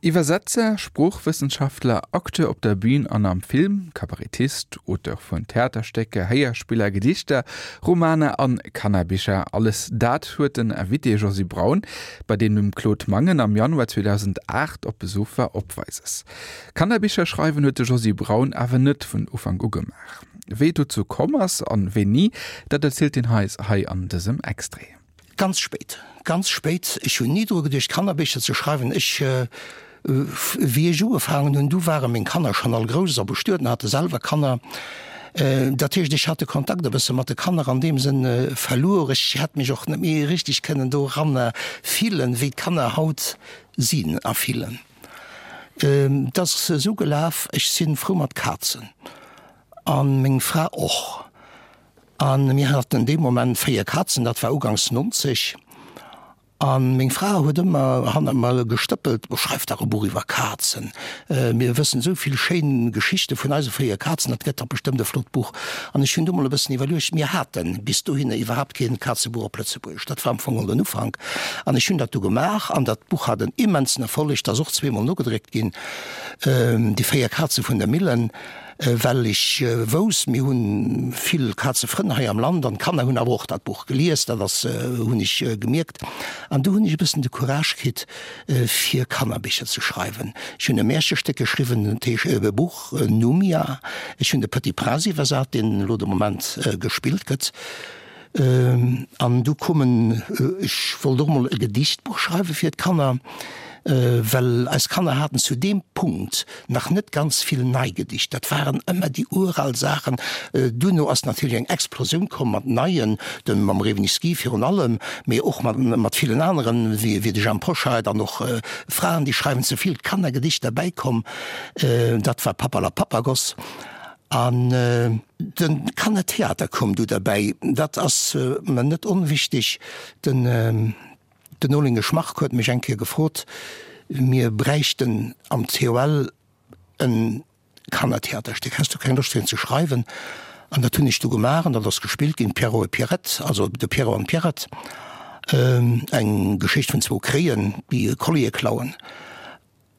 Iwwersetzer, Sproochwëssenschaftler, Acteur op der Bühn an am Film, Kabarettist, Auteur vun Theaterstécker, Héierspiller, Gedichter, Romaner an Kannerbicher, alles dat huet den Invité Josy Braun, bei deem dem Claude Mangen am Januar 2008 op Besuch war, opweises. Kannerbicher schreiwen huet de Josy Braun awer net vun Ufank u gemaach. Wéi et dozou komm ass an wéini, dat erzielt hien eis hei an dësem Extrait. Ganz spéit, ganz spéit. Ech hunn ni dru geduecht, Kannerbicher ze schreiwen. Ech, wéi ech ugefaangen hunn, du ware meng Kanner schonn all grouss a bestuet an hate selwer Kanner. Dat heescht, ech hat de Kontakt e bësse mat de Kanner an deem Sënn verluer. Ech hätt mech och net méi richteg kënnen doranner fillen, wéi d'Kanner haut sinn a fillen. Et ass esou gelaf, ech si frou mat Kazen a meng Fra och. A mir haten dee Moment 4 Kazen, dat war uganks 90. A meng Fra huet ëmmer hannert mer gestëppelt, Oh, schreif dach e Buch iwwer Kazen. Mir wëssen esou vill schéin Geschichte vun eise 4 Kazen, dat gëtt dach bestëmmt e flott Buch. An ech hunn du mol e bëssen iwwerluecht, mir hate bis dohinner iwwerhaapt keen Kazebuch op Lëtzebuergesch. Dat war am Fong den Ufank. An ech hunn dat du gemaach an dat Buch hat en immensen Erfolleg, dat ass och zweemol nogedréckt ginn, Déi 4 Kaze vun der Millen. Well ech wousst, mir hu vill Kazefrënn hei am Land an d'Kanner hunn awer och dat Buch gelies, dat ass, hunn ech gemierkt. An du hunn ech e bëssen de Courage kritt, fir Kannerbicher ze schreiwen. Ech hunn e Märchestéck geschriwwen, dat heescht e Buch, Numia. Ech hunn de Petit Prince iwwersat, deen elo de Moment gespillt gëtt. An du kommen, ech wollt och mol e Gedichtbuch schreiwe fir d'Kanner, well eis Kanner haten zu deem Punkt nach net ganz vill nei Gedichter. Dat waren ëmmer déi ural Saachen. Duerno ass natierlech eng Explosioun komm mat neien, dem mam Rewniski virun allem, mee och mat mat villen aneren, wéi wéi de Jhemp Hoscheit an och Fraen, déi schreiwen ze vill Kannergedichter bäikomm. Dat war Papperlapappagos. An de Kannertheater koum du derbäi. Dat ass mer net onwichtig. Den den Olingesch Marc huet mech eng Kéier gefrot, mir bräichten am COL e Kannertheaterstéck, häss du keng Loscht fir een ze schreiwen? An dat hunn ech du gemaach an dat ass gespillt ginn, Pierrot et Pierrette, also de Pierrot an d'Pierrette, eng Geschicht vun zwou Kréien, déi Kollie klauen.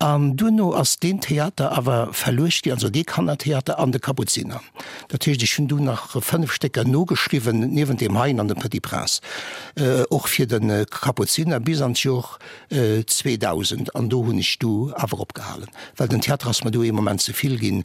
An duerno ass deen Theater awer verluecht ginn, also dee Kannertheater an de Kapuziner. Dat heescht, ech hunn du nach 5 Stécker nogeschriwwen, niewent deem heien an dem Petit Prince, och fir de Kapuziner bis an d'Jor 2000. An do hunn ech du awer opgehalen, well den Theater ass mer du ee Moment ze vill ginn,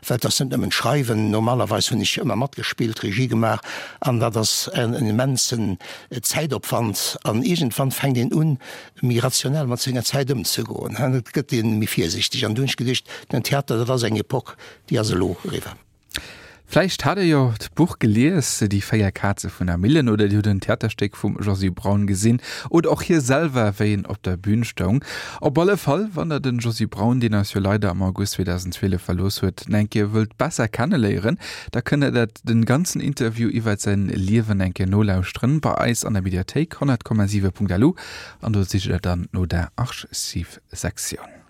well et ass net nëmmen d'Schreiwen. Normalerweis hunn ech ëmmer matgespillt, Regie gemaach, an dat ass en immensen Zäitopwand. An iergendwann fänkt een un, méi rationell mat senger Zäit ëmzegoen, et gëtt ee méi virsiichteg. An du hunn ech geduecht, den Theater, dat ass eng Epoch, déi ass elo eriwwer. Vläicht hat Dir jo d'Buch gelies, Déi 4 Kaze vun der Millen, oder Dir hutt en Theaterstéck vum Josy Braun gesinn, oder och hie selwer, wéi en op der Bühn stoung. Op alle Fall, wann Der den Josy Braun, deen eis jo leider am August 2012 verlooss huet, eng Kéier wëllt besser kenneléieren, da kënnt Der dat den ganzen Interview iwwert säin Liewen eng Kéier nolauschteren bei eis an der Mediathéik 100,7.lu an do sicht Der dann no der Archivsektioun.